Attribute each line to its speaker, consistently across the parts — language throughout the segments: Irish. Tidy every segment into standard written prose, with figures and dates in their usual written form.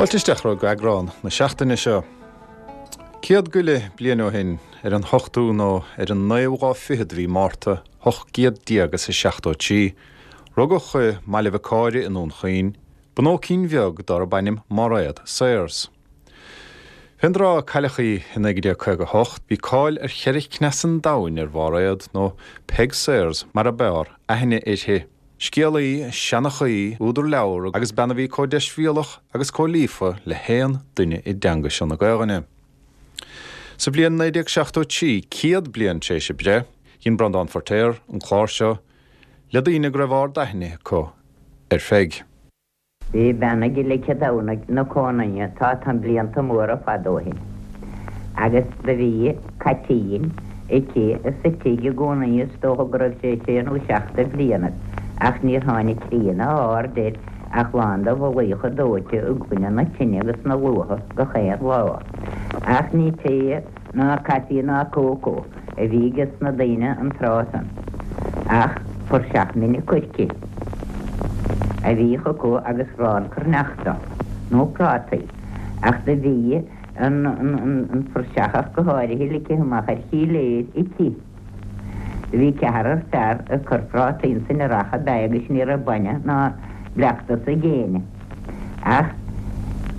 Speaker 1: Fáilte isteach go eagrán na seachtaine seo. Céad go leith bliain ó shin, ar an ochtú nó ar an naoú lá fichead de mhí Márta, 1873, rugadh i mBaile Bhiocáire i nDún Chaoin, bunóicín bheag darb ainm Mairéad Sayers. Fén dtráth a cailleadh í i 1958, bhí cáil ar cheithre cneas an domhain ar Mhairéad, nó Peig Sayers mar ab fhearr aithne uirthi. Scéalaí, seanchaí, údar leabhar agus bean a bhí comh deisbhéalach agus comh líofa le haon duine i dteanga seo na Gaelainne. Sa bhliain 1973, 100 bliain tar éis a breith, dhein Breandán Feiritéar an clár seo le daoine go raibh ard-aithne acu ar Pheig.
Speaker 2: Bhí bean ag Leice Domhnaigh 'na cómhnaidhe tá tá blianta móra fada ó shin agus do bhí caitín aici sa tigh i gcómhnaidhe is dócha go raibh sé sé nó seacht de bhlianaibh ach níor tháinig croí ná árd air ach lán de mhullaíocha dóite i gcoinne na tine agus na luatha gach aon lá. Ach ní tae ná caife ná cócó a bhí ages na daoine an tráth san, ach puirseach mine coirce a bhíodh acu agus arán cruithneachta, nó prátaí, ach do bhí an phuirseach ach go háirithe ligthe amach ar shíléir aici. Do bhí ceathrar fear ag cur prátaí insan earrach ab ea agus ní raibh bainne ná bleachtas ag éinne. Ach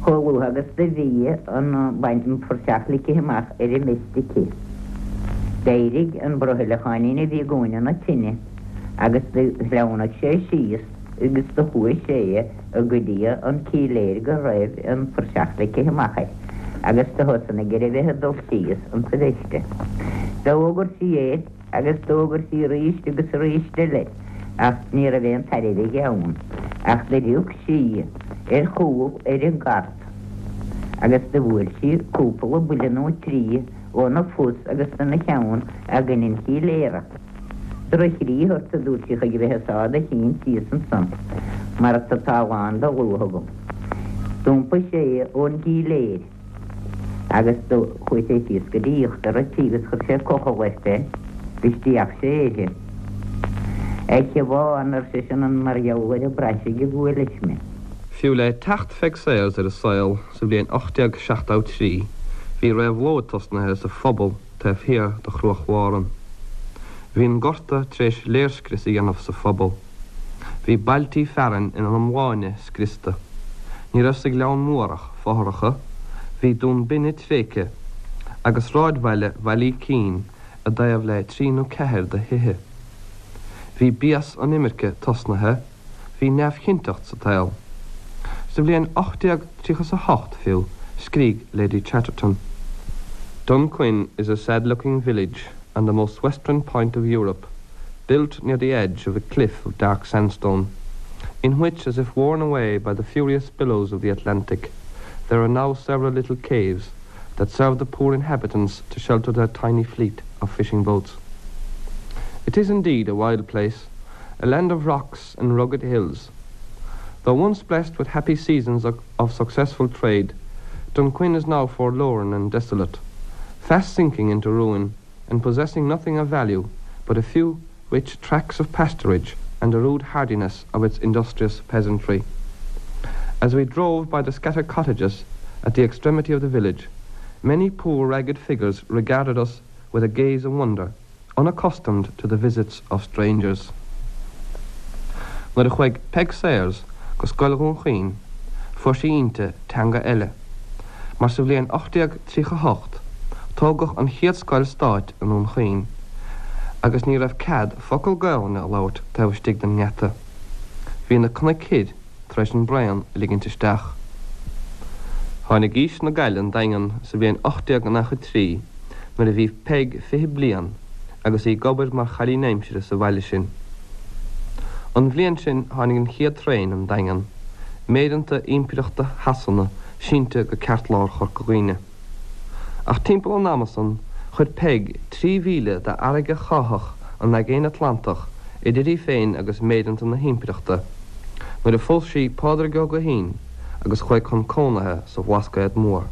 Speaker 2: chomh luath agus do bhí an phuirseach ligthe amach ar an mbeist aici, d'éirigh an brothaileacháinín a bhí i gcúinne na tine agus do shleamhnaigh sé síos agus do chuaigh sé go dtí an cíléir go raibh an phuirseach ligthe amach air agus do thosnaigh ar a bheith ag dul síos insa bheiste. D'fhógair sí air. Agus d'fhógair sí arís agus arís eile, ach ní raibh aon tairbhe aige ann, ach do rug sí ar chúl ar an gcart agus do bhuail sí cúpla buille nó trí óna phus agus ina cheann i gcoinne an chíléara. Droch-chroí ort, a dúirt sí, chuig a bheith ag sá do chinn síos ansan mar tá lán de luaith agam. D'iompaigh sé ón gcíléir. Agus do chuaidh sé síos go dtí íochtar a' tí agus chuir sé cochall air féin agus d'fhéach sé uirthi. A Shiobhán, ar seisean, an mar gheall ar an bpraisigh a bhuailis mé?
Speaker 3: Fiú le teacht Pheig Sayers ar an saol sa bhliain 1873, bhí réabhlóid tosnaithe sa phobal taobh thiar de Chruach Mhàran. Bhí an gorta tar éis léirscrios a dhéanamh sa phobal. Bhí bailtí fearainn ina n-iomláine scriosta. Ní raibh sa Ghleann Mór ach fothracha, bhí Dún Binne tréigthe, agus sráidbhaile Bhaile Ícín i dtaobh le trí nó ceathair de thithe. Bhí béas an imirce tosnaithe, bhí neamhchinnteacht sa tsaol. Sa bhliain 1838 fiú, scrígh Lady Chatterton. Dunquin is a sad-looking village on the most western point of Europe, built near the edge of a cliff of dark sandstone, in which, as if worn away by the furious billows of the Atlantic, there are now several little caves that serve the poor inhabitants to shelter their tiny fleet of fishing boats. It is indeed a wild place, a land of rocks and rugged hills. Though once blessed with happy seasons of, of successful trade, Dunquin is now forlorn and desolate, fast sinking into ruin and possessing nothing of value but a few rich tracts of pasturage and the rude hardiness of its industrious peasantry. As we drove by the scattered cottages at the extremity of the village, many poor ragged figures regarded us with a gaze of wonder, unaccustomed to the visits of strangers. Nuair a chuaigh Peig Sayers go Scoil Dhún Chaoin, fuair sí inti teanga eile, mar sa bhliain 1838 tógadh an chéad scoil stáit i nDún Chaoin agus ní raibh cead focal Gaelainne a labhairt taobh istigh den ngeata. Bhí na cnoic thoir tar éis an braon a ligint isteach. Tháinig aois na gCailleadh 'on Daingean sa bhliain 1893 nuair a bhí Peig 20 bliain agus í ag obair mar chailín aimsire sa bhaile sin. An bhliain sin tháinig an chéad traein 'on Daingean, méireanta Impireachta Shasana sínte go ceartlár Chorca Dhuibhne. Ach timpeall an ama san chuir Peig 3 mhíle d'fharraige cháitheach an Aigéin Atlantach idir í féin agus méireanta na hImpireachta nuair a phós sí Pádraig Ó Guithín agus chuaigh chun cónaithe sa Bhlascaod Mór.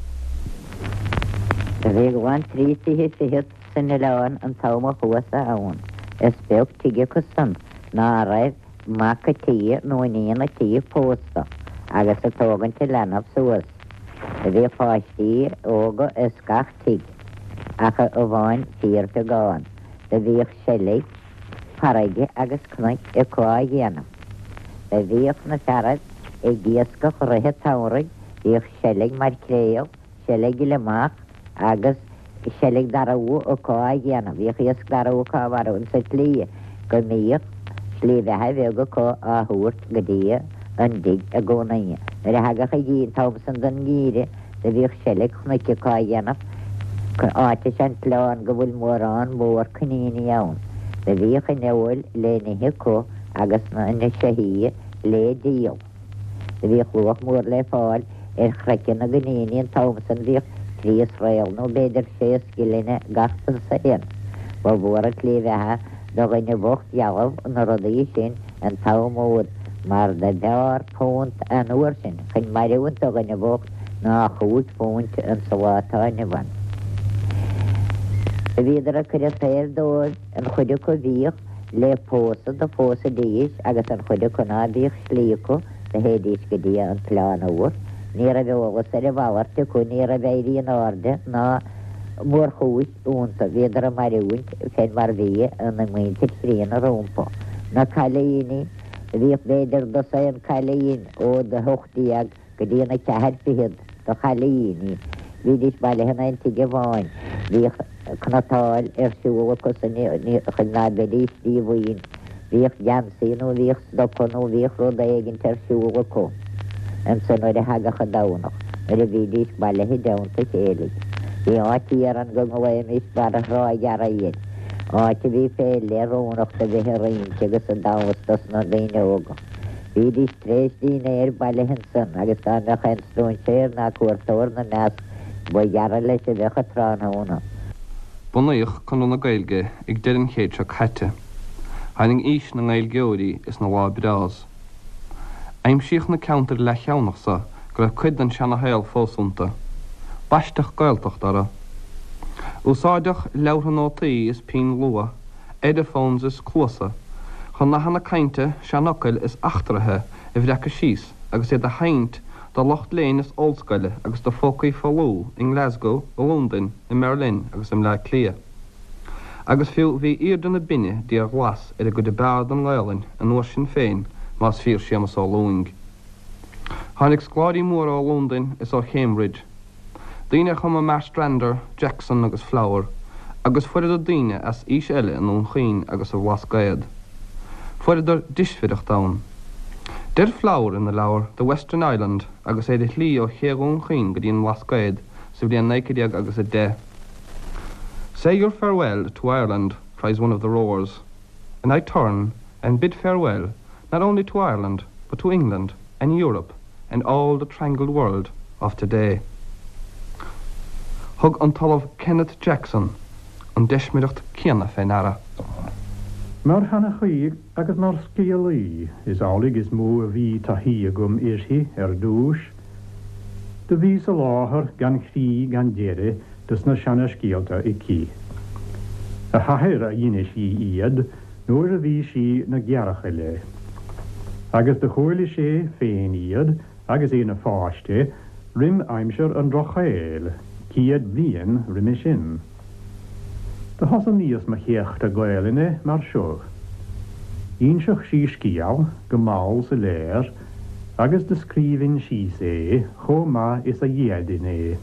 Speaker 2: Do bhí glan trí tithe fichead san oileán an t-am a chuas-sa ann. Is beag tigh acu san ná raibh mac a' tighe nó iníon a' tighe pósta agus ag tógaint a leanbh suas. Do bhíodh páistí óga ins gach tigh ach amháin fíorbheagán. Do bhíodh seilg farraige agus cnoic acu á dhéanamh. Do bhíodh na fearaibh ag iascach rith an tsamhraidh, bhíodh seilg maircréal, seilg gliomach agus seilg darbh acu á dhéanamh. Bhíodh iasc darbh acu á mharú insa tslí go mbíodh slí bheatha bheag acu á thabhairt go dtí an dtigh i gcónaí. Nuair a thagadh an an t-am san den ngeimhreadh do bhíodh seilg chnoic acu á dhéanamh. Áit is ea an t-oileán go bhfuil mórán mór coiníní ann. Do bhíodh an fheoil le n-ithe acu agus na seithí le díol. Do bhíodh luach mór le fáil ar chraiceann na gcoiníní an t-am san, bhíodh trí sraoll nó b'fhéidir sé scilling gach dosaen. Ba mhór an tslí bheatha do dhuine bhocht dhealbh na rudaí sin an t-am úd mar do b'fheárr púnt an uair sin chun mairiúint do dhuine bhocht ná chúig phúint insa lá atá inniu ann. Do bhíodar ag cur an tsaoil dóibh an chuid acu bhíodh le pósadh do phósaidís agus an chuid acu ná bíodh slí acu do théidís go dtí an tOileán Úr. Ní raibh eolas ar a mhalairt acu, ní raibh éirí in airde ná mórchúis iontu, bhíodar ag mairiúint fén mar bhí an mhuintir chríonna rompu. Na cailíní, bhíodh b'fhéidir dosaen cailín ó 18 go dtí an ceathair fichead de chailíní. Bhídís bailithe in aon tigh amháin. Bhíodh cnatáil ar siúl acu san chun ná beidís díomhaoin. Bhíodh geansaí nó bhíodh stoca nó bhíodh rud éigint ar siúl acu ansan nuair a thagadh an Domhnach, nuair a bhídís bailithe i dteannta a chéile. Bhí áit thiar ann go nglaoimis Barra Thrá Ghearraí air, áit a bhí fé leith oiriúnach do bheith ag rince agus ag damhsa dos na daoine óga. Bhídís tar éis dínnéir bailithe ansan agus dá mbeadh aon stróinséir ná cuairteoir 'na measc ba ghearra leis a bheadh an tráthnóna.
Speaker 3: Bunaíodh Conradh na Gaeilge ag deireadh an chéid seo caite. Tháinig aois na nGaeilgeoirí is na lá breás. Aimsíodh na ceantair leathcheannach so go raibh cuid den seana-shaol fós iontu. Baisteadh Gaeltacht orthu. Úsáideadh leabhartha nótaí is pinn luaith Ediphones is cluasa, chun nathanna cainte, seanfhocail is eachtraithe a bhreacadh síos agus iad a sheinnt do lucht léinn is ollscoile agus do phócaí folmha i nGlasgow, i Londain, i mBerlin agus i mBleá Cliath. Agus fiú bhí aoirde na binne d'fhíorghlas ar an gcuid ab fhearr den nGaelainn an uair sin féin más fíor Séamus Ó Lúing. Tháinig scoláirí móra ó Londain is ó Chambridge. Daoine a chum i Marstrander, Jackson agus Flower, agus fuaireadar daoine as aois eile i nDún Chaoin agus sa Bhlascaod. Fuaireadar deismhireacht ann. Deir Flower ina leabhar The Western Island agus é ar a shlí ó ché Dhún Chaoin go dtí an mBlascaod sa bhliain 19 agus 10, Say your farewell to Ireland, cries one of the rowers, and I turn and bid farewell not only to Ireland but to England and Europe and all the trangled world of today. Thug an tOllamh Kenneth Jackson an deismireacht céanna fé ndeara.
Speaker 4: Mar sheanchaí agus mar scéalaí is amhlaidh is mó a bhí taithí agam uirthi ar dtúis. Do bhí soláthar gan chrí gan deireadh dos na seana-scéalta aici. A hathair a d'inis dhi iad nuair a bhí sí 'na gearrchaile. Agus do chuala sé féin iad agus é 'na pháiste roim aimsir an Drochshaoil, céad bliain roime sin. Do thosnaíos mo chéachta Gaelainne mar seo. Dh'ínseadh sí scéal go mall soiléir agus do scríbhinn síos é chomh maith is a d'fhéadfainn é,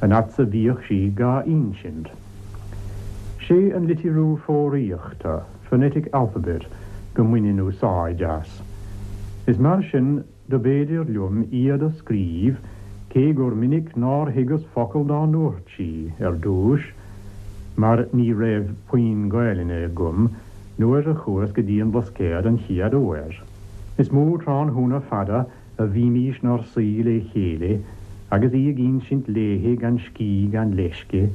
Speaker 4: an fhad 's a bhíodh sí dhá ínsint. Sé an litriú foghraíochta, phonetic alphabet, go mbaininn úsáid as. Is mar sin do b'fhéidir liom iad a scríobh cé gur minic nár thuigeas focal dá ndúirt sí ar dtúis mar ní raibh puinn Gaelainne agam nuair a chuas go dtí an Blascaod an chéad uair. Is mó tráthnóna fada a bhímís 'nár suí lé chéile agus í ag ínsint léithi gan scíth gan leisce,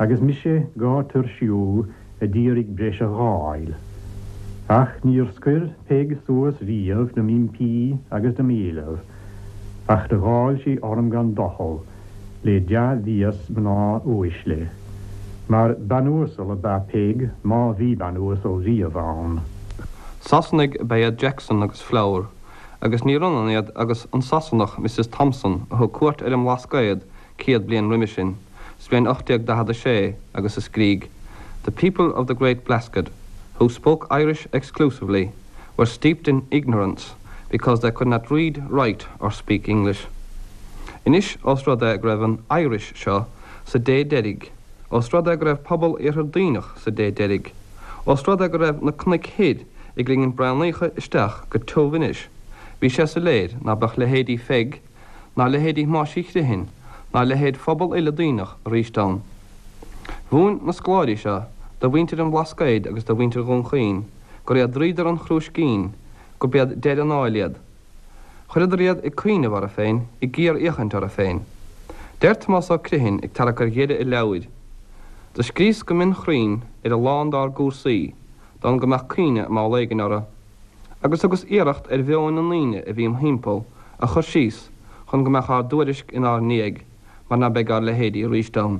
Speaker 4: agus mise dhá tuirsiú a d'iarraidh breis a dh'fháil. Ach níor scoir Peig suas riamh do m'impí agus do m'éileamh, ach do dháil sí orm gan doicheall, le dea-bhéas mná uaisle. Mar bean uasal ab ea Peig má bhí bean uasal riamh ann.
Speaker 3: Sasanaigh ab ea iad Jackson agus Flower. Agus níor ionann iad agus an Sasanach Mrs Thompson a thug cuairt ar an mBlascaod 100 bliain roimhe sin, sa bhliain 1846, agus a scrígh, The people of the Great Blasket, who spoke Irish exclusively, were steeped in ignorance because they could not read, write or speak English. Anois, ós rud é go raibh an Irish seo sa dé deiridh, ós rud é go raibh pobal Iarthar Duibhneach sa dé deiridh, ós rud é go raibh na cnoic thoir ag ligint braonaíocha isteach go tiubh anois, bhí sé soiléir ná beadh leithéidí Pheig, ná leithéidí Thomáis Uí Chriomhthain, ná leithéid phobal uile Duibhneach aríst ann. Mhúin na scoláirí seo do mhuintir an Bhlascaoid agus do mhuintir Dhún Chaoin gur iad dríodar an chrúiscín, gurb iad deireadh an áil iad. Chuireadar iad ag cuimhneamh orthu féin, ag géarfhéachaint orthu féin. Deir Tomás Ó Criomhthain ag tarrac ar dheireadh a leabhair, Do scríos go mionchruinn ar a lán dár gcúrsaí, d'fhonn go mbeadh cuimhne am éigin orthu. Agus thugas iarracht ar mheoin na ndaoine a bhí im thimpeall a chur síos chun go mbeadh ár dtuairisc inár ndiaidh mar ná beidh ár leithéidí aríst ann.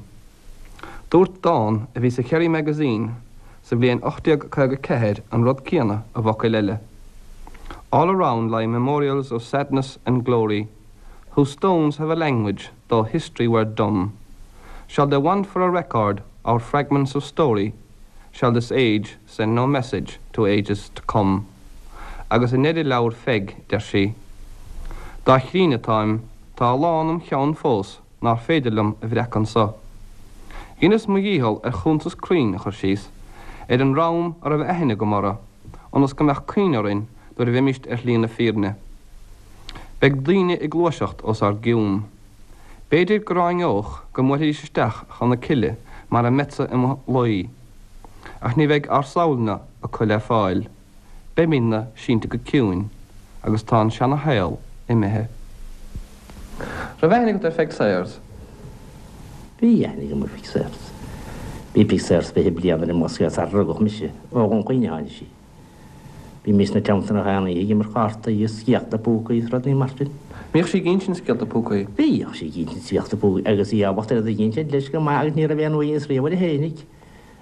Speaker 3: Dúirt dán a bhí sa Kerry Magazine sa bhliain 1854 an rud céanna i bhfocail eile, All around lie memorials of sadness and glory, Whose stones have a language though history were dumb. Shall they want for a record our fragments of story? Shall this age send no message to ages to come? Agus i ndeireadh leabhar Pheig, deir sí, Dá chríne atáim, tá a lán im cheann fós nár féidir liom a bhreacadh anso. Dheineas mo dhícheall ar chuntas cruinn a chur síos ar an dream a raibh aithne agam orthu, ionas go mbeadh cuimhne orainn nuair a bheimíst ar shlí na fírinne. Beidh daoine ag gluaiseacht os ár gcionn. B'fhéidir go ráineodh go mbuailfidís isteach chun na cille mar a mbeadsa i mo luí. Ach ní bheidh ár samhail-na acu le fáil. Beimídne sínte go ciúin agus tá an seana-shaol imithe. Raibh aithne agat ar Pheig Sayers?
Speaker 5: Bhí aithne agam ar Pheig Sayers. Bhí Peig Sayers 20 bliain ar an mBlascaod sar a rugadh mise. Ó Dhún Chaoin a tháinig sí. Bhímis ina teannta nach aon oíche ag imirt chártaí is scéalta púcaí is rudaí mar sin.
Speaker 3: Mbíodh sí ag insint scéalta púcaí?
Speaker 5: Bhíodh sí ag insint scéalta púcaí agus í ábalta iad a insint leis go maith agus ní raibh aon uaigneas riamh uirthi fhéinig.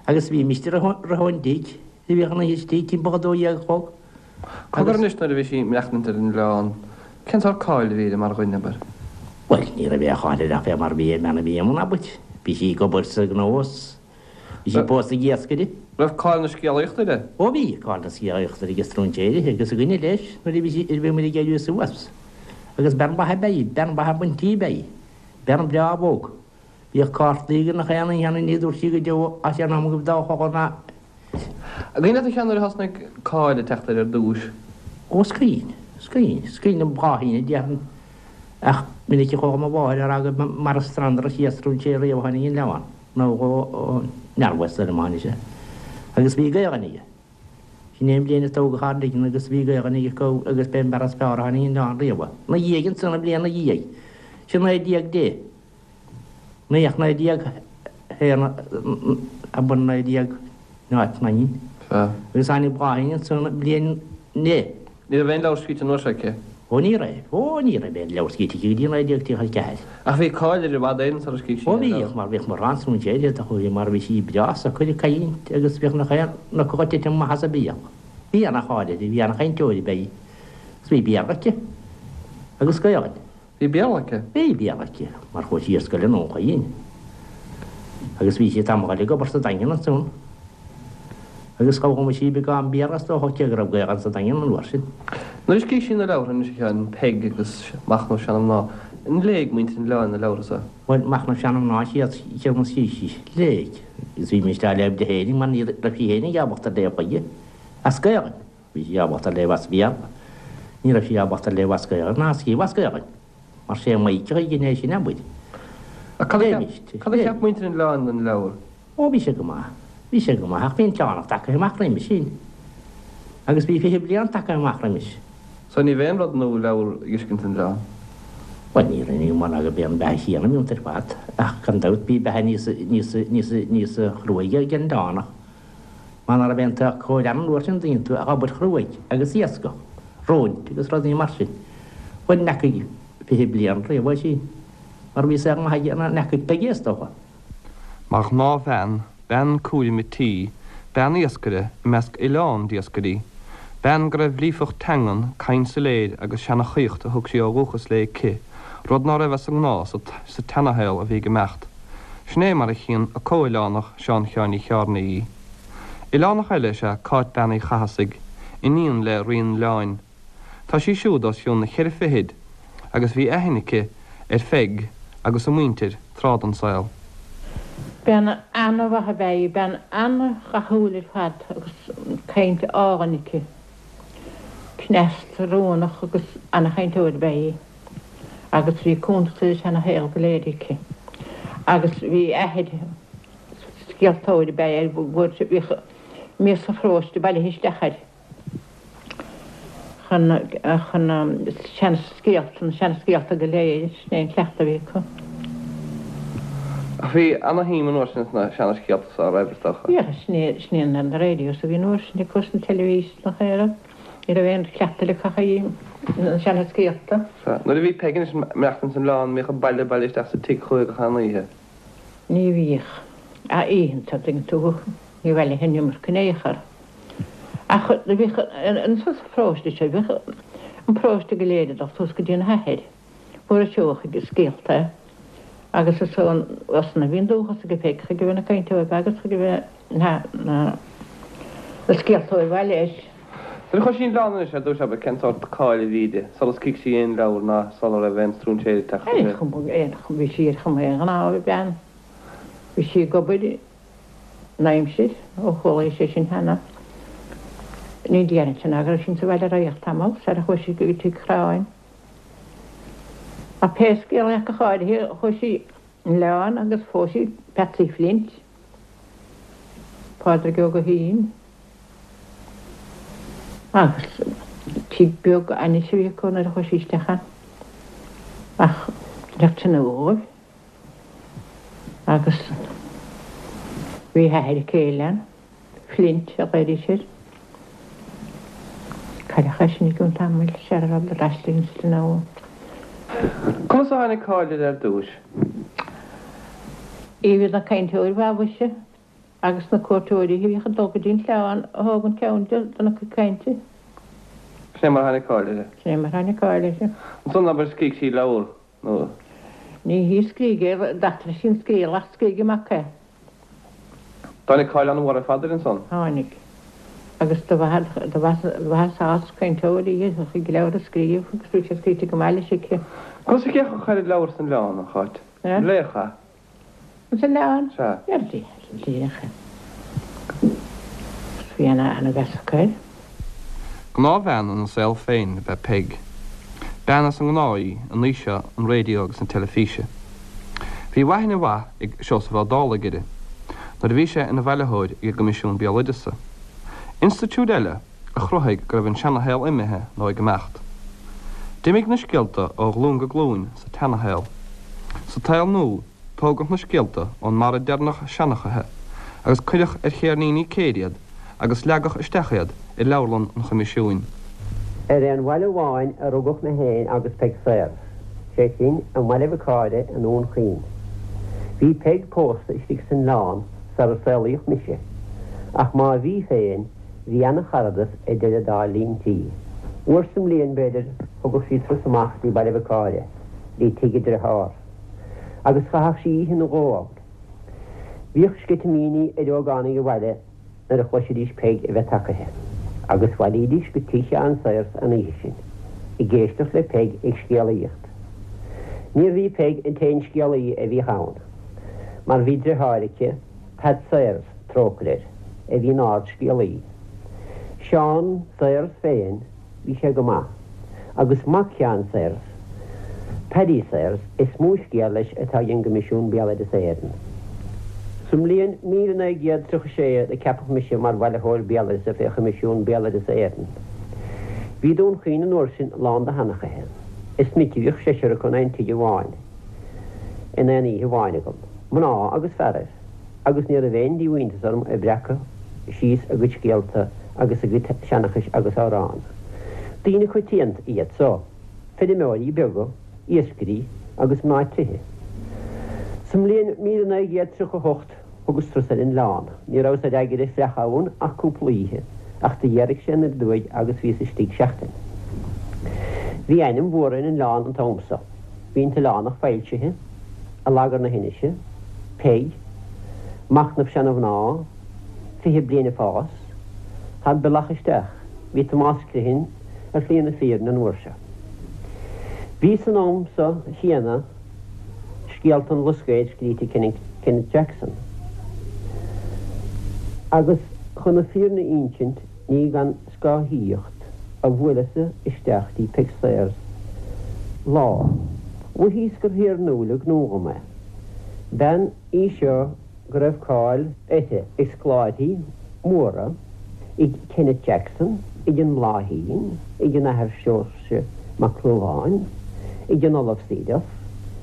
Speaker 5: Agus bhímist roimhe ón dtigh, bhíodh an oíche istigh timpeall a 12 a chlog.
Speaker 3: Cogar anois nuair a bhí sí ag maireachtaint ar an oileán, cén sórt cáil a bhí uirthi mar dhuine, abair?
Speaker 5: Bhuel, ní raibh aon cháil uirthi ach fé mar a bhí ar an mbean a bhí amuigh, abair. Bhí sí ag obair sa ghnó is. Bhí sí pósta ag iascaire.
Speaker 3: Raibh cáil na scéalaíochta uirthi?
Speaker 5: Ó bhí, cáil na scéalaíochta uirthi ag stróinséirí agus againne leis nuair a bhí sí, nuair a bhí muid ag éirí suas. Agus bean mhaith ab ea í, bean mhaith an tí ab ea í. Bean breá bhog. Bhíodh cártaí ag nach aon oíche ann ní dúirt sí go deo as an am go dá chogadh ná.
Speaker 3: An cuimhin leat a Sheáin nuair a thosnaigh cáil ag teacht uirthi ar dtúis?
Speaker 5: Ó is cuimhin, is cuimhin, is cuimhin liom Bláithín a déarfainn ach minic a chuala mo mháthair á rá gur mar an Strand as stróinséir riamh a tháinig an leamhan. Nó ó Nearmhas ar an mbainne seo. Agus bhí Gaelainn aige. Sin é an bhliain a tógadh ár dtigh agus bhí Gaelainn aige acu agus b'é an fear is fearr a tháinig an oileán riamh. Na dhiaidh ansan, an bhliain na dhiaidh. Sin 1910. Naoi ach 1901 a bun 19 0 naoi.
Speaker 3: Sea.
Speaker 5: Agus tháinig Bláithín ansan an bhliain na.
Speaker 3: Ní raibh aon leabhar scríte an uair seo aici.
Speaker 5: Ó ní raibh. Ó ní raibh aon leabhar scríte aici go dtí 1934.
Speaker 3: Ach bhí cáil uirthi i bhfad Éireann sara scríobh sí
Speaker 5: Ó
Speaker 3: aon
Speaker 5: bhíodh,
Speaker 3: leabhar.
Speaker 5: mar bhíodh mórán stróinséirí a chuaigh mar bhí sí breá socair ag caint agus bhíodh nach aon fhocal ag titim amach as a béal. Bhí ana-cháil uirthi, bhí ana-chainteoir ab ea í. Agus bhí Béarla aici. Agus Gaelainn.
Speaker 3: Bhí Béarla aici?
Speaker 5: Bhí Béarla aici, mar chuaigh sí ar scoil i nDún Chaoin. Agus bhí sí tamall ag obair sa Daingean ansan. Agus d'fhoghlaim sí beagán Béarla is dócha cé go raibh Gaelainn sa Daingean an uair sin.
Speaker 3: Nuair a scríobh sí na leabhartha anois a Sheáin, Peig agus Machnamh Seana-Mhná, an léigh muintir an oileáin na leabhartha so?
Speaker 5: Bhuel, Machnamh Seana-Mhná an chéad cheann a scríobh sí. Léigh. Agus bhímist á léamh di féinig mar ní raibh sí féinig ábalta léamh chuige. As Gaelainn. Bhí sí ábalta léamh as Béarla. Ní raibh sí ábalta léamh as Gaelainn ná scríobh as Gaelainn. Mar sé Maidhc a dhein é sin, abair.
Speaker 3: Ach cad a cheap, cad a cheap muintir an oileáin den leabhar?
Speaker 5: Ó, bhí sé go maith. Bhí sé go maith, ach bhí an t-oileán tagtha amach roimis sin. Agus bhí 20 bliain tagtha amach roimis.
Speaker 3: So ní b'aon rud nua leabhar a dh'fheiscint san oileán?
Speaker 5: Bhuel, ní raibh, ní mar ná go b'é an beatha chéanna a bhí iontu ar fad, ach gan dabht bhí beatha níos, níos, níos, níos chruaidhe ag an oileánach. Mar ná raibh aon tsaghas cóir ann an uair sin dtuigeann tú ach obair chruaidh agus iascach, róint agus rudaí mar sin. Bhuel, n'fheacaigh 20 bliain riamh é sin, mar bhí saol maith aige ná n'fheacaigh Peigí is dócha.
Speaker 3: Mar ghnáthbhean, bean cúraim a' tí, bean iascaire i measc oileán d'iascairí. Bean go raibh líofacht teangan, caint soiléir agus seanachaíocht a thug sí ó dhúchas léi aici, rud ná raibh as an ngnáth sa tseanashaol a bhí ag imeacht. Sin é mar a chíonn a comhoileánach Seán Sheáin Uí Chearnaigh í. Oileánach eile is ea Cáit Bean Uí Chathasaigh, iníon le Rí an Oileáin. Tá sí siúd os cionn na cheithre fichid agus bhí aithne aici ar Pheig agus a muintir tráth den saol.
Speaker 6: Bean ana-mhaith ab ea í, bean ana-dhathúil ar fad agus caint álainn aici. Cneasta, rúnach agus ana-chainteoir ab ea í agus bhí cuntas ar an seana-shaol go léir aici. Agus bhí athair, scéaltóir ab ea é, bhíodh mias an pharóiste bailithe isteach air. chun chun seanscéalta, na seanscéalta go léir, sin é an cleachtadh a bhí acu.
Speaker 3: Ach bhí ana-shuim an uair sin sna seana-scéalta so, an raibh, is dócha?
Speaker 6: Bhíodh, sin é, sin é na radios a bhí an uair sin acu, is an teilifís nach raibh, ní raibh aon chleachtadh eile acu ach na seana-scéalta.
Speaker 3: Sea. Nuair a bhí Peig anois ag maireachtaint san oileán, an mbíodh an baile bailithe isteach sa tigh chuici gach aon oíche?
Speaker 6: Ní bhíodh. Ach oícheanta, an dtuigeann tú, ní bhailithe an iomarca in aon chor. Ach do bhíodh anso sa pharóiste seo, bhíodh an paróiste go léir ag dul suas go dtí an hathair, Mhuire Seoigheach ag scéalta agus is ansan a bhí an dúchas aige Peig chuige a bheith ina cainteoir agus chuige a bheith na na scéaltóir mhaith leis.
Speaker 3: Nuair a chuaigh sí 'on oileán anois ar dtúis abair cén sórt cáil a bhí di, sula scrígh sí aon leabhar ná sula raibh aon stróinséir ag teacht
Speaker 6: uirthi? Ar chuma, bhí sí ar chuma aon ghnáthbhean. Bhí sí ag obair an aimsir, ó chuala sé sin cheana. Ní déarfainnse ná go raibh sí insa bhaile ar feadh tamall sar a chuaigh sí go Tigh Chráin. Ach pé scéal é ach go háirithe chuaigh sí 'on oileán agus phós sí Patsy Flint, Pádraig Ó Guithín, agus tigh beag ainnis a bhí acu nuair a chuaigh sí isteach ann. Ach bheadh tine dhóibh. Agus bhí a hathair céile ann, Flint a ghlaoidís air. Cailleadh é sin i gcionn tamaill, sara rabhadar aistrithe insan oileán.
Speaker 3: Conas a tháinig cáil uirthi ar dtúis?
Speaker 6: Í a bhí ina cainteoir mhaith mhuise, agus na cuairteoirí a bhíodh ag dul go dtí an t-oileán a thóg an ceann di dona cuid cainte.
Speaker 3: Sin é mar a tháinig cáil uirthi.
Speaker 6: Sin é mar a tháinig cáil uirthi.
Speaker 3: Ansan abair scrígh sí leabhar nó.
Speaker 6: Ní hí a scrígh é, d'eachtraigh sí an scéal ach scrígh a mac é.
Speaker 3: Tháinig cáil an-mhór ar fad uirthi ansan.
Speaker 6: Tháinig. Agus do mhaitheas cainteoir í a chuig leabhar a scríobh agus bhí sé scríte go maith leis aici.
Speaker 3: Conas a d'fhéachadh ar leabhair san oileán, a Cháit? Léadh é?
Speaker 6: San oileán?
Speaker 3: Sea.
Speaker 6: Léadh é. Bhí ana-mheas acu air.
Speaker 3: Gnáthbhean ina saol féin ab ea Peig. Bean as an ngnáth í in aois seo an raidió agus na teilifíse. Bhí aithne mhaith ag Seosamh Ó Dálaigh uirthi nuair a bhí sé ina bhailitheoir ag an gCoimisiún Béaloideasa. Institiúid eile a chruthaigh go raibh an seanashaol imithe nó ag imeacht. D'imigh na scéalta ó ghlúin go glúin sa tseanashaol. Sa tsaol nua, tógadh na scéalta ón mbarra deireanach seanchaithe agus cuireadh ar cheirníní céir iad agus leagadh isteach iad i leabharlann an Choimisiúin.
Speaker 7: Ar aon bhaile amháin a rugadh mé féin agus Peig Sayers, sé sin, i mBaile Mhic Áire i nDún Chaoin. Bhí Peig pósta istigh san oileán sar a saolaíodh mise, ach má bhí féin, bhí ana-charadas idir an dá líon tí. Uair sa mbliain, b'fhéidir, thugadh sí turas amach dtí Baile Mhic Áire, dtí tigh a driothár, agus chaitheadh sí oíche nó dhó ann. Bhíodh sceitimíní ar ógánaigh an bhaile nuair a chloisidís Peig a bheith tagaithe, agus bhailídís go tigh Sheáin Sayers an oíche sin, ag éisteacht le Peig ag scéalaíocht. Níorbh í Peig an t-aon scéalaí a bhíodh ann, mar bhí driotháir aici, Pat Sayers, trócaire air, a bhí ina ard-scéalaí. Seán Sayers féin, Bhí sé go maith. Agus mac Sheáin Sayers, Paddy Sayers, is mó scéal leis atá ag an gCoimisiún Béaloideasa Éireann. Sa mbliain 1936 do ceapadh mise mar bhailitheoir béaloideasa fé Choimisiún Béaloideasa Éireann. Bhí Dún Chaoin an uair sin lán de sheanchaithe. Is minic a bhíodh seisear acu in aon tigh amháin in aon oíche amháin agam, mná agus fearaibh. agus ní raibh aon díomhaointeas orm ag breacadh síos a gcuid scéalta agus a gcuid seanchais agus amhrán. Daoine coitianta iad so, feirmeoirí beaga, iascairí agus mná tithe. Sa mbliain 1938 thugas turas ar an oileán. Ní rabhas ar eagaire fliuch ann ach cúpla oíche. Ach do ghéaraigh sé anoir aduaidh agus bhíos istigh seachtain. Bhí ainm mhór ar an oileán an t-am so. Bhí an tOileánach foilsithe, Allagar na hInise, Peig, Machnamh Seana-Mhná, 20 Bliain ag Fás, Thar Bealach Isteach, bhí Tomás Criomhthain ar shlí na fírinne an uair seo. Bhí san am so chéanna Scéalta an Bhlascaoid scríte ag Kenneth Jackson. Agus chun na fírinne a insint ní gan scáthaíocht a bhuaileas-sa isteach dtí Peig Sayers lá. Mhothaíos gur thiarnúil an gnó dhom é. Bean í seo go raibh cáil uirthi ag scoláirí móra, ag Kenneth Jackson, ag an mBláithín, ag an Athair Seoirse Mac Lubháin, ag an Ollamh Seeduff,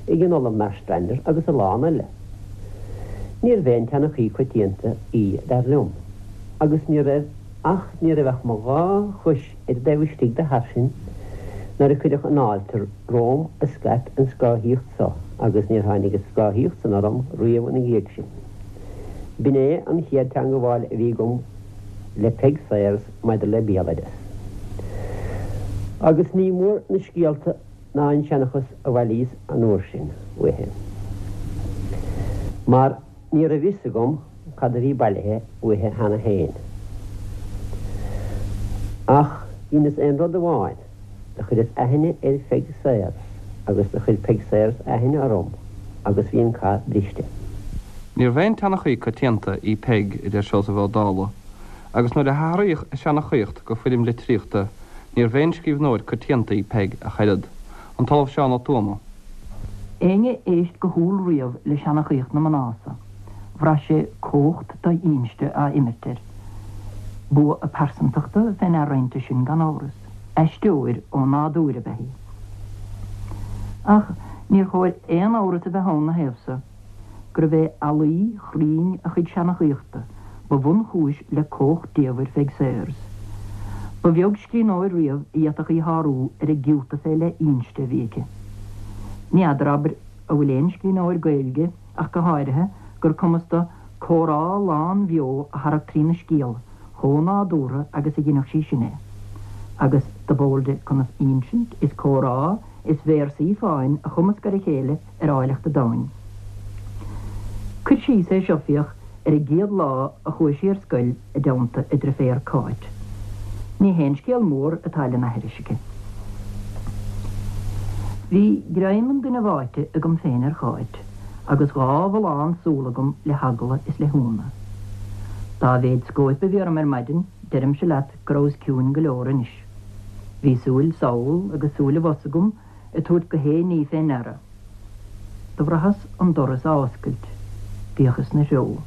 Speaker 7: ag an Ollamh Marstrander agus a lán eile. Níorbh aon tseanchaí coitianta í, dar liom, agus ní raibh ach ní raibh ach mo dhá chois ar an dtaobh istigh de thairsin nuair a cuireadh an fháilte romham a scaip an scáthaíocht so agus níor tháinig an scáthaíocht san orm riamh ina dhiaidh sin. B'in é an chéad teangabháil a bhí agam le Peig Sayers maidir le béaloideas. Agus ní mór na scéalta ná an seanchas a bhailíos an uair sin uaithi, mar ní raibh fhios agam cad a bhí bailithe uaithi cheana féin. Ach dheineas aon rud amháin, do chuireas aithne ar Pheig Sayers agus do chuir Peig Sayers aithne orm agus bhí an cath briste.
Speaker 3: Níorbh aon tseanchaí coitianta í Peig, a deir Seosamh Ó Dálaigh, agus nuair a hathraíodh an seanchaíocht go foirm litríochta, níorbh aon scríbhneoir coitianta í Peig ach oiread. An tOllamh Seán Ó Tuama.
Speaker 8: Éinne a éist go humhal riamh le seanchaíocht na mná so, bhraith sé cumhacht do-inste á imirt air. Bua a pearsantachta fé ndear roimpi sin gan amhras. Aisteoir ó nádúr ab ea í. Ach níor chóir aon amhras a bheith ann 'na thaobh so, gurbh é ealaí chruinn a chuid seanchaíochta ba bhunchúis le cumhacht diamhair Pheig Sayers. Ba bheag scríbhneoir riamh a d'fhéadfadh í shárú ar an gciúta fé leith inste a bhí aici. Ní fheadar, abair, an bhfuil aon scríbhneoir Gaeilge, ach go háirithe, gur cumas do comhrá lánbheo a tharrac trína scéal chomh nádúrtha agus a dheineadh sí sin é. Agus dob eol di conas insint is comhrá is véarsaí fáin a chumasc ar a chéile ar áilleacht an domhain. Cur síos é seo, féach, ar an gcéad lá a chuaigh sí ar scoil i dteannta a driféar Cáit. Ní haon scéal mór atá lena aithris aici. Bhí greim an duine bháite agam féin ar Cháit agus dhá bhullán súl agam le heagla is le hionadh. Dá mhéid scóip a bhí orm ar maidin, deirimse leat go rabhas ciúin go leor anois. Bhí súil sall agus súil abhus agam ag tabhairt gach aon ní fé ndeara. Do bhraitheas an doras á oscailt. D'fhéachas 'na threo.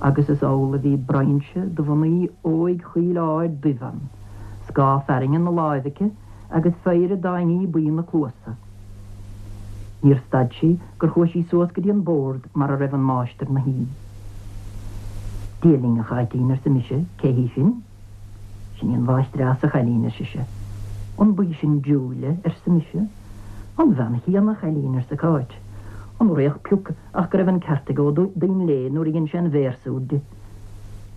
Speaker 8: Agus is amhlaidh a bhí brainse de mhnaoi óig chaoil ard duibh ann, scáth fearthainne 'na láimh aici agus péire d'fháinní buí 'na cluasa. Níor stad sí gur chuaigh sí suas go dtí an bord mar a raibh an máistir 'na shuí. Dia linn, a Cháitín, arsa mise, cé hí sin? Sin í an mháistreás, a chailín, ar sise. An b'í sin Julia, arsa mise. An bhean chéanna, a chailín, arsa Cáit. An fhraoch pioc ach go raibh an ceart ag Ó Duinnshléibhe nuair a dhein sé an véarsa úd di.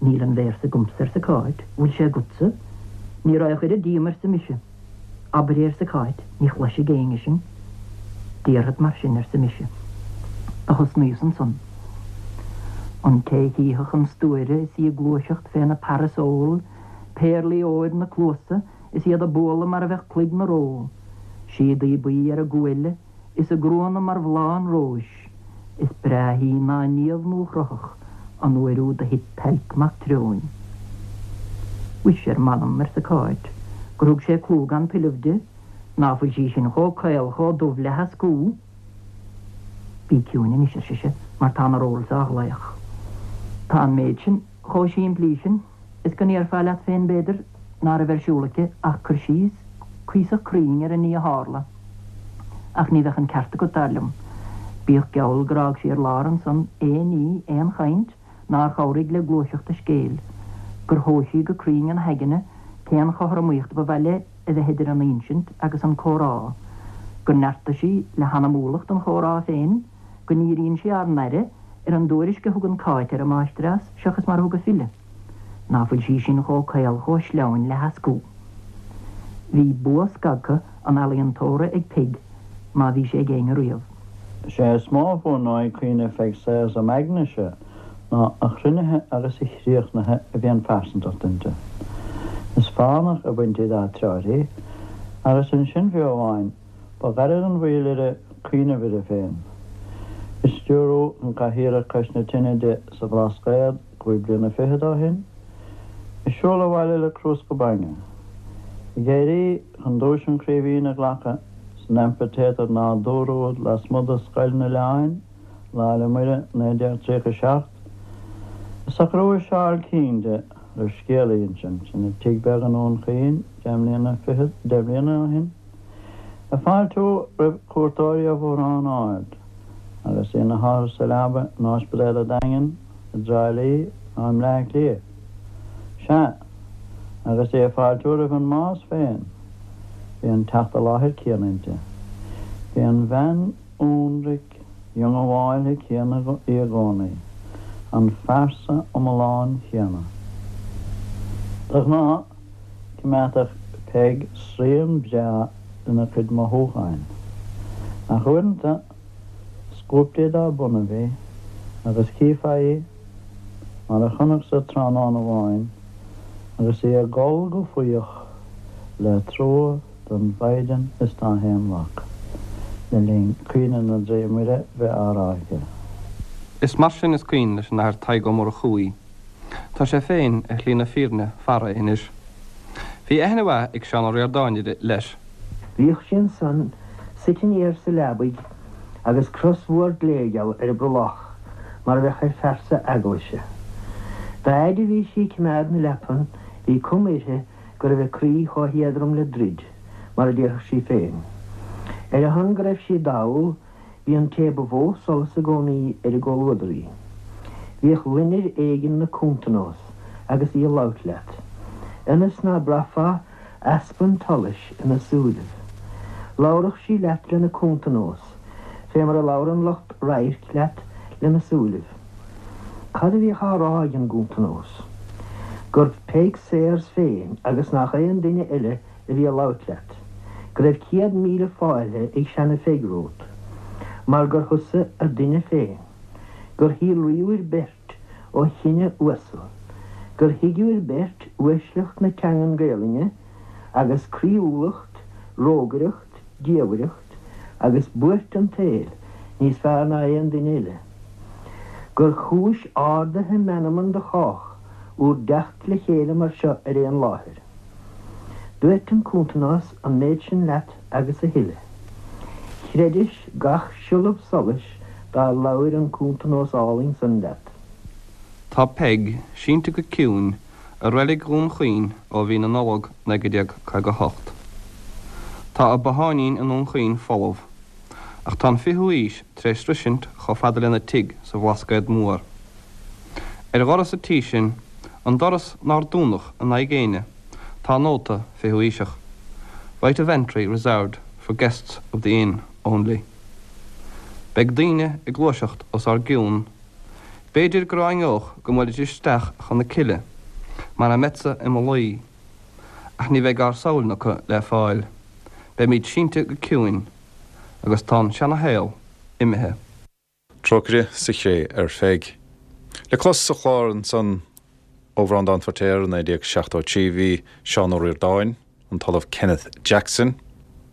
Speaker 8: Níl an véarsa agamsa, arsa Cáit. Bhfuil sé agatsa? Ní raghadh oiread díom, arsa mise. Abair é, arsa Cáit, ní chloisfidh éinne sinn. Déarfad mar sin, arsa mise. Do thosnaíos ansan. An té chífeadh an stuaire is í ag gluaiseacht féna parasól, péarlaí óir 'na cluasa is iad ag bualadh mar a bheadh cloig 'na ró, síodaí buí ar a guaille is a gruanna mar bhláth an róis, is breáthaí ná Niamh nuachruthach an uair úd a thit Tailc Mac Treoin. Mhuise ar m'anam, arsa Cáit, gur thug sé clú gan tuilleamh di, ná fuil sí sin chomh caol chomh dubh le heascú? Bí ciúin anois, ar sise, mar tá na rolls á ghlaoch. Tá an méid sin chomh simplí sin is go ndéarfá leat féin, b'fhéidir, ná raibh ar siúl aici ach cur síos cuíosach cruinn ar an ní a tharla. Ach ní bheadh an ceart agat, dar liom. Bíodh geall gur fhág sí ar lár ansan aon ní, aon chaint, nár chabhraigh le gluaiseacht a scéil, gur thomhais sí go cruinn ina haigne cén chothromaíocht ba mhaith léi a bheith idir an insint agus an comhrá, gur neartaigh sí le hanamúlacht an chomhrá féin, go ndíríonn sí ár n-aire ar an dtuairisc a thugann Cáit ar an máistreás seachas mar a thug a file. Ná fuil sí sin chomh caol chomh sleamhain le heascú. Bhí bua scagtha an ealaíontóra ag Peig má bhí sé ag éinne riamh.
Speaker 9: Is é is mó a bhuanóidh cuimhne Pheig Sayers im aignese ná a chruinnithe agus a chríochnaithe a bhí an phearsantacht inti. Is fánach a baintí dá treoir í, agus ansin fiú amháin, ba ghairid an mhoill uirthi cuimhneamh uirthi féin. Ag stiúrú chun cathaoireach cois na tine di sa Bhlascaod cúig bliana fichead ó shin, ag siúl abhaile le crúsca bainne, ag éirí chun duais an Chraoibhín a ghlacadh san Amphitéatar nádúrtha úd lasmuigh de Scoil an Oileáin, Lá 'le Muire 1937, ag socrú a seál cinn di roimh scéal a insint ina tigh beag i nDún Chaoin deich mbliana fichead, deich mbliana ó shin, ag fáiltiú roimh chuairteoirí ó Bhodhrán Ard agus í ina hothair sa leaba in Ospidéal an Daingin, i dTrá Lí nó i mBleá Cliath. Sea, agus í ag fáiltiú roimh an mbás féin, bhí an teacht i láthair céanna inti. Bhí an bhean ionraic dhiongbháilte céanna í i gcónaí, an phearsa iomlán chéanna. De ghnáth, choimeádfadh Peig srian breá lena cuid mothúcháin, ach uaireanta, scuabtaí dá bonnaibh í, agus chífeá í, mar a chonacsa tráthnóna amháin, agus í ag gol go fuíoch le trua don Mhaighdean is dá hAon Mhac, le linn Caoineadh na dTrí Muire bheith á rá aici.
Speaker 3: Is mar sin is cuimhin leis an Athair Tadhg Ó Murchú í. Tá sé féin ar shlí na fírinne fara anois. Bhí aithne mhaith ag Seán Ó Ríordáin uirthi, leis.
Speaker 10: Bhíodh sí ansan suite aniar sa leabaidh agus cros mhór gléigeal ar a brollach mar a bheadh ar phearsa eaglaise. Dá fhaid a bhí sí ag cimeád na leapan bhí cuma uirthi go raibh a croí chomh héadrom le druid, mar a déarfadh sí féin. Ar a shon go raibh sí dall, bhí an té ba mhó solas i gcónaí ar an gcomhluadar í. Bhíodh loinnir éigin 'na cuntanós agus í ag labhairt leat, ionas ná braithfeá easpa an tsolais ina súilibh. Labhradh sí leat lena cuntanós, fé mar a labhrann lucht radhairc leat lena súilibh. Cad a bhíodh á rá ag an gcuntanós? Gurbh Peig Sayers féin agus nach aon duine eile a bhí ag labhairt leat. Go raibh 100,000 fáilte ag seana-Pheig romhat, mar gur thusa a duine féin. Gur shíolraíobhair beirt ó chine uasal. Gur thuigeabhair beirt uaisleacht na teangan Gaelainne agus croíúlacht, rógaireacht, diamhaireacht agus buairt an tsaoil níos fearr ná aon duine eile. Gur chúis ardaithe meanman do chách úr dteacht le chéile mar seo ar aon láthair. Dúirt an cuntanós an méid sin leat agus a thuilleadh. Chreidis gach siollab solais dár labhair an cuntanós álainn san leat.
Speaker 3: Tá Peig sínte go ciúin i reilig Dhún Chaoin ó mhí na Nollag 1958. Tá a botháinín i nDún Chaoin folamh, ach tá an fichiú haois tar éis sroisint chomh fada lena tigh sa Bhlascaod Mór. Ar dhoras an tí sin, an doras nár dúnadh in aghaidh éinne, tá nóta fichiú haoiseach, Right of entry reserved for guests of the inn only. Beidh daoine ag gluaiseacht os ár gcionn B'fhéidir go ráineodh go mbuailfidís isteach chun na cille, mar a mbeadsa i mo luí, ach ní bheidh ár samhail acu le fáil. Beimid sínte go ciúin, agus tá an seana-shaol imithe.
Speaker 1: Trócaire sa chré ar Pheig. Le clos sa chlár ansan ó Bhreandán Feiritéar i 1973 bhí Seán Ó Ríordáin, an tOllamh Kenneth Jackson,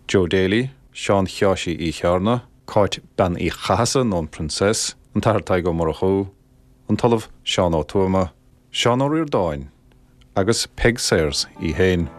Speaker 1: Joe Daly, Seán Sheáirsí Uí Chearna, Cáit Bean Uí Chathasaigh nó an Princess, an tAthair Tadhg Ó Murchú, an tOllamh Seán Ó Tuama, Seán Ó Ríordáin agus Peig Sayers í féin.